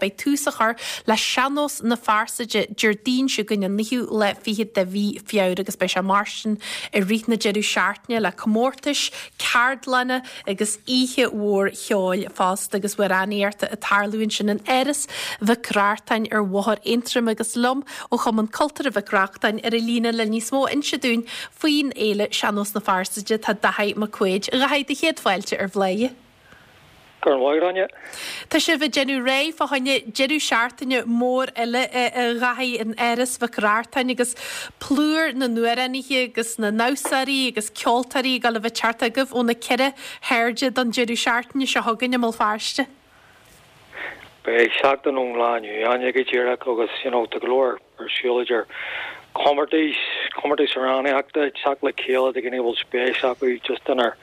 Beidh tús á chur le Sean-Nós na Fearsaide Déardaoin seo chugainn an naoú lá fichead de mhí Feabhra agus beidh sé mar sin i rith na deireadh seachtaine le comórtais, ceardlanna agus oíche mhór cheoil fosta agus amhránaíochta ag tarlú ansin in Áras Mhic Reachtain ar Bhóthar Aontroim agus liom ó Chumann Cultúrtha Mhic Reachtain ar an líne le níos mó a inse dúinn faoin fhéile Sean-Nós na Fearsaide tá Daithí Mac Quaid. A Dhaithí, do chéad fáilte ar Bhláth. Go raibh maith agat, Áine. Tá sibh ag déanamh réidh fá choinne deireadh seachtaine mór eile a Dhaithí in Áras Mhic Reachtain agus plúr na n-amhránaithe agus na ndamhsóirí agus ceoltóirí ag dul a bheith ag teacht chugaibh ó na ceithre hairde don deireadh seachtaine seo chugainn i mBéal Feirste. Beidh seachtain ón lá inniu, Áine, go díreach agus you know tá go leor ar siúl idir comórtais, comórtais amhránaíochta, teacht le chéile do dhaoine a bhfuil spéis acu just inár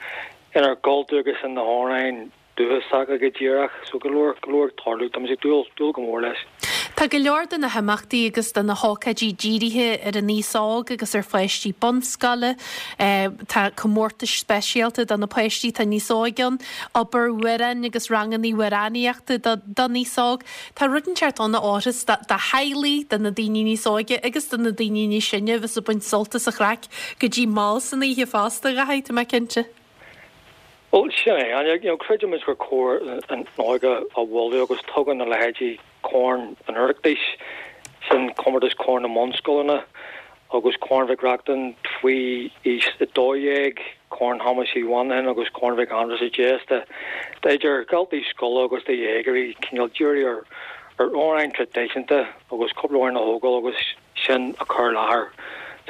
inár gcultúr agus in na hamhráin dúchasacha go díreach. So go leor, go leor ag tarlú. Tá muid ag dúil, dúil go mór leis. Tá go leor de na himeachtaí agus de na hócáidí dírithe ar an aos óg agus ar pháistí bunscoile. Tá comórtais speisialta do na páistí atá níos óige ann, obair amhráin agus ranganna amhránaíochta don aos óg. Tá rud inteacht ann a fhóirfeas do theaghlaigh, do na daoine níos óige agus do na daoine níos sine a bheas ag baint sult as an chraic go dtí mall san oíche fosta, a Dhaithí, tá mé cinnte. Bhuel, sin é. And, you know, creidimid gur cóir an óige a mholadh agus tugann a leithéidí Corn an Oireachtais, sin comórtas Corn na mBunscoileanna, agus Corn Mhic Reachtain faoi aois 12, Corn Thomáis Uí Mhonacháin agus Corn Mhic Aindreasa deis d'idir dhaltaí scoile agus do dhéagóirí cineál díriú ar amhráin traidisiúnta agus cúpla amhrán a thógáil agus sin a chur i láthair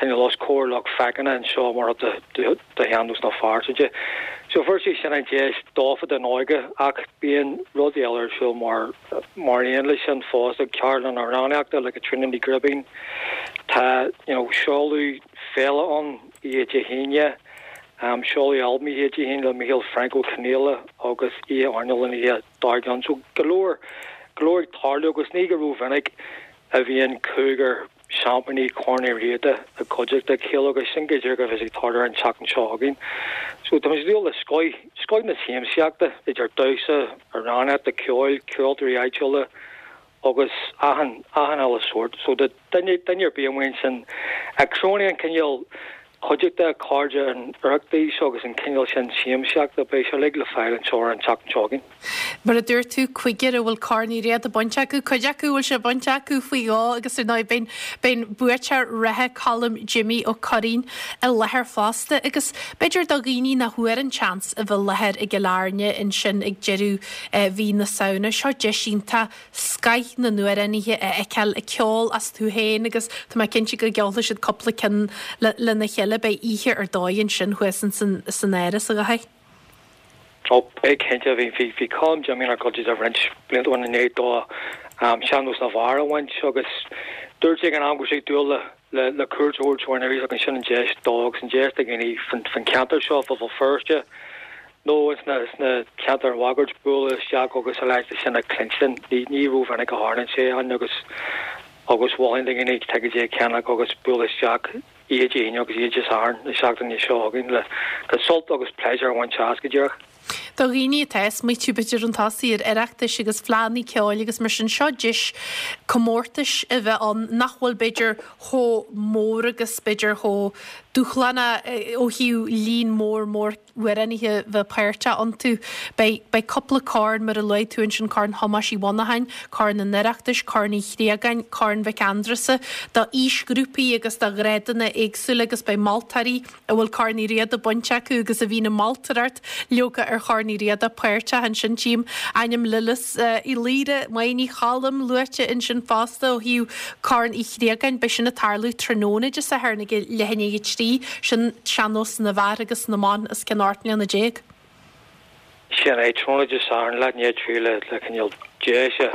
cineál os comhair lucht féachana anseo mar chuid de Shean-Nós na Fearsaide. So fuair sé sin an deis dófa don óige ach bíonn rudaí eile ar siúl mar mar aon leis sin fosta, ceardlann amhránaíochta le Caitríona Ní Ghribín, tá you know seoladh féile ann oíche Dé hAoine, seoladh albam oíche Dé hAoine le Micheál Frainc Ó Conghaile agus oíche airneáil an oíche dár gcionn. So go leor go leor ag tarlú agus ní go rómhinic a bhíonn cúigear seaimpíní Chorn Uí Riada i gcuideachta a chéile agus sin go díreach a bheas ag tarlú ar an tseachtain seo chugainn. So tá muid ag dúil le scoith, scoith na siamsaíochta idir damhsa, amhránaíocht, ceoil, ceoltóirí áitiúla agus achan, achan uile sórt. So do duine, duine ar bith amuigh ansin a chronaíonn cineál cuideachta, cairde an Oireachtais agus an cineál sin siamsaíochta, beidh sé uilig le fáil anseo ar an tseachtain seo chugainn. Mar a dúirt tú, cúigear a bhfuil Corn Uí Riada bainte acu, cuid acu a bhfuil sé bainte acu faoi dhó agus ar ndóigh beidh an buaiteoir reatha Colm Jimmy Ó Curraoin i láthair fosta agus b'fhéidir do dhaoine nach bhfuair an tseans a bheith i láthair i gCill Airne ansin ag deireadh mhí na Samhna, seo deis iontach scoith na n-amhránaithe a fheiceáil ag ceol astu féin agus tá mé cinnte go gceolfaidh siad cúpla ceann lena chéile. Beidh oíche ar dóigh ansin thuas san Áras, a Dhaithí. Ó, beidh cinnte. Bhí, bhí, bhí Colm Jimmy inár gcuideachta roinnt blianta ó shin i ndiaidh dó Sean-Nós na bhFear a bhaint agus dúirt sé ag an am go raibh sé ag dúil le, le, le cuairt a thabhairt orainn arís agus sin an deis dó agus an deis do dhaoine fan, fan cheantar seo, fá Bhéal Feirste nó sna, sna ceantair mháguaird bualadh isteach agus a leithéid sin a chluinstin. Ní, ní rómhinic a tharlaíonn sé ann agus, agus mholfainn do dhaoine ticéidí a cheannach agus bualadh isteach. Oíche Dé hAoine agus Oíche Dé Sathairn na seachtaine seo chugainn le sult agus pléisiúr a bhaint as, go díreach. Do dhaoine atá ag smaoitiú b'fhéidir chun tosaigh ar Oireachtais agus fleánna ceoil agus mar sin, seo deis comórtais a bheith ann nach bhfuil b'fhéidir chomh mór agus b'fhéidir chomh dúshlánach ó thaobh líon mór mór amhránaithe bheith páirteach iontu. Beidh, beidh cúpla corn, mar a luaigh tú ansin, Corn Thomáis Uí Mhonacháin, Corn an Oireachtais, Corn Uí Chriagáin, Corn Mhic Aindreasa, do aoisghrúpaí agus do ghrádanna éagsúla agus beidh moltóirí a bhfuil Corn Uí Riada bainte acu agus a bhíonn ag moltóireacht leoga ar Chorn Uí Riada páirteach ansin. Tchím ainm Lillis Uí Laoire, Máire Ní Choilm luaite ansin fosta ó thaobh Corn Uí Chriagáin. Beidh sin ag tarlú tráthnóna Dé Sathairn ag leath i ndiaidh a 3. Sin sean-nós na bhfear agus na mban os cionn 18 mbliana. Sin é, tráthnóna Dé Sathairn, leath i ndiaidh a 3 le le cineál deis a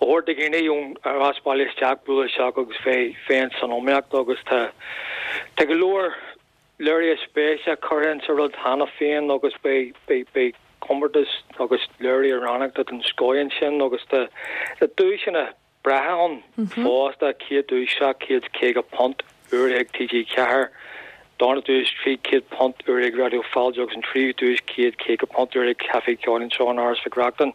thabhairt do dhaoine ón ar as baile isteach bualadh isteach agus bheith bheith san iomaíocht agus tá tá go leor léirithe spéise curtha insa rud cheana féin agus beidh beidh beidh comórtas agus léirithe amhránaíochta den scoth ansin agus tá tá duaiseanna breátha ann fosta, chéad duais £750 urraithe ag TG4. Darna duais, £300 uair ag Raidió Fáilte agus an tríú duais, £150 uair ag Caifé Ceoil anseo in Áras Mhic Reachtain.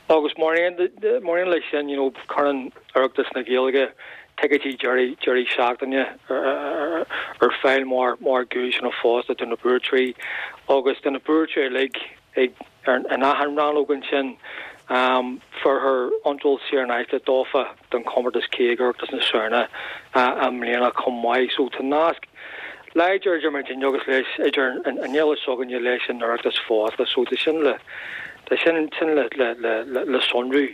Agus mar aon mar aon leis sin, you know, cuireann Oireachtas na Gaeilge ticéidí deiridh deiridh seachtaine ar fáil mar mar dhuaiseanna fosta do na buaiteoirí agus do na buaiteoirí uilig ag in achan rannóg ansin. Fuarthar iontráil saor in aisce dófa don chomórtas céad Oireachtas na Samhna i mbliana chomh maith. So tá nasc láidir idir muidinne agus leis, idir an fhéile s'againne leis an Oireachtas fosta. So tá sin le, tá sin sin le, le, le, le sonrú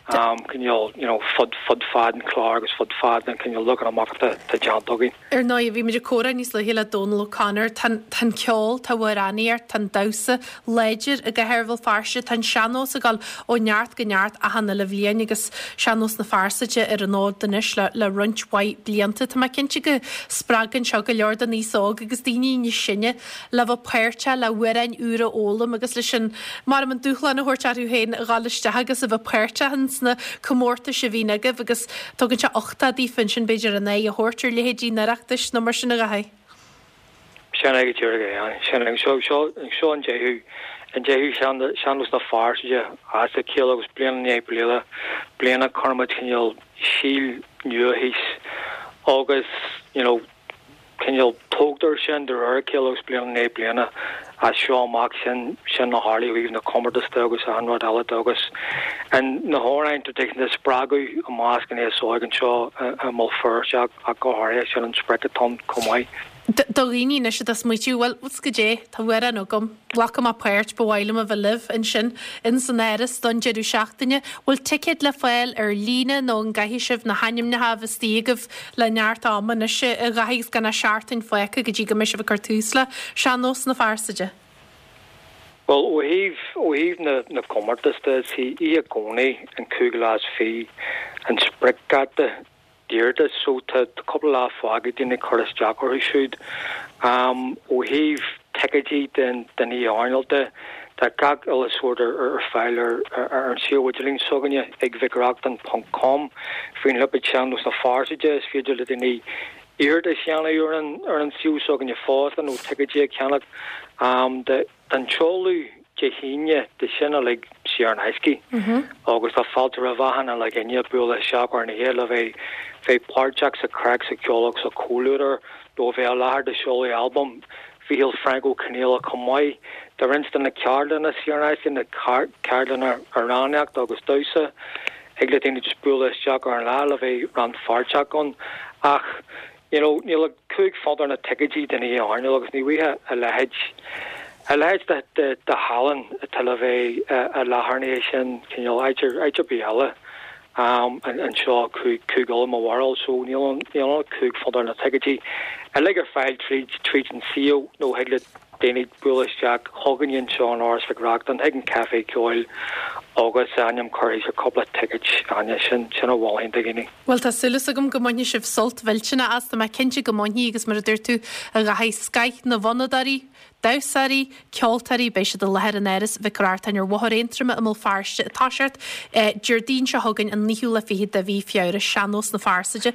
cineál, you know, fud, fud fad an chláir agus fud fad an cineál leagan amach atá déanta againn. Ar ndóigh, bhí muid ag comhrá níos luaithe le Dónal O'Connor. Tá an ceol, tá amhránaíocht, tá an damhsa láidir i gcathair Bhéal Feirste. Tá an sean-nós ag dul ó neart go neart achan uile bhliain agus Sean-Nós na Fearsaide ar an fhód anois le roinnt mhaith blianta. Tá mé cinnte go spreagann seo go leor den aos óg agus daoine níos sine le bheith páirteach, le hamhráin úra a fhoghlaim agus leis an, mar an dúshlán a thabhairt orthu féin a dhul isteach agus a bheith páirteach ins na comórtais a bhíonn agaibh agus Tugann sé uchtach daofa ansin, b'fhéidir, an aghaidh a thabhairt ar leithéidí an Oireachtais nó mar sin, a Dhaithí. Sin é go díreach é. Sin é. Seo, seo, seo an deichiú, an deichiú Sean-Nós na Fearsaide as a chéile agus bliain i ndiaidh bliana, bliana cuireann muid cineál síol nua thíos agus, you know, cineál tógtar sin de réir a chéile agus bliain i ndiaidh bliana as seo amach sin sin a tharlaigh ó thaobh na comórtas de agus achan rud eile de agus an na hamhráin traidisiúnta a spreagadh i measc an aos óig anseo i mBéal Feirste ach go háirithe sin an sprioc atá ann chomh maith. Do dhaoine anois atá ag smaoitiú, bhuel, goidé, tá amhrán agam, glacfaidh mé páirt, ba mhaith liom a bheith libh ansin ins an Áras don deireadh seachtaine. Bhfuil ticéid le fáil ar líne nó an gcaithfidh sibh na hainmneacha a bheith istigh agaibh le neart ama anois, a Dhaithí, agus gan ach seachtain fágtha go dtí go mbeidh sibh ag cur tús le Sean-Nós na Fearsaide? Bhuel, ó thaobh, ó thaobh na, na gcomórtas de, is í oíche Dhomhnaigh an cúigiú lá is fiche an spriocdháta d'iarratais so tá cúpla lá fágtha ag daoine cur isteach orthu siúd. Ó thaobh ticéidí den den oíche airneáil de, tá gach uile sórt ar ar fáil ar ar an suíomh idirlín s'againne ag mhicreachtain ponc com. Faoin lipéad Sean-Nós na Fearsaide is féidir le daoine iarratas a dhéanamh ar an ar an suíomh s'againne fosta nó ticéidí a cheannach. Don tseoladh Dé hAoine tá sin uilig saor in aisce agus tá fáilte roimh achan uile dhuine bualadh isteach ar an oíche le bheith bheith páirteach sa chraic, sa cheol agus sa chomhluadar nó a bheith i láthair do sheoladh albam Mhícheál Frainc Ó Conghaile chomh maith. Tá roinnt de na ceardlanna saor in aisce, na ceardlanna amhránaíochta agus damhsa, thig le daoine just bualadh isteach ar an lá le bheith rannpháirteach ann ach You know, níl ach £5 ar na ticéidí don oíche airneáil agus ní bhfaighfeá a leithéid, a leithéid de, de, de thallann atá le bheith i láthair an oíche sin, cineál áit ar, áit ar bith eile anseo, Cúige Uladh mo bharúil, so níl ann, níl ann ach £5 ar na ticéidí. Uilig ar fáil tríd, tríd an suíomh nó thig le daoine bualadh isteach chugainne anseo in Áras Mhic Reachtain, chuig an Café Ceoil agus a ainm curtha thíos ar cúpla ticéid, Áine, sin, sin a mholfainn do dhaoine. Bhuel, tá súil agam go mbainfidh sibh sult mhillteanach as, tá mé cinnte go mbainfidh agus mar a dúirt tú, a Dhaithí, scoth na bhfonnadóirí, damhsóirí, ceoltóirí, beidh siad i láthair in Áras Mhic Reachtain ar Bhóthar Aontroma i mBéal Feirste ag toiseacht Déardaoin seo chugainn an naoú lá fichead de mhí Feabhra, Sean-Nós na Fearsaide.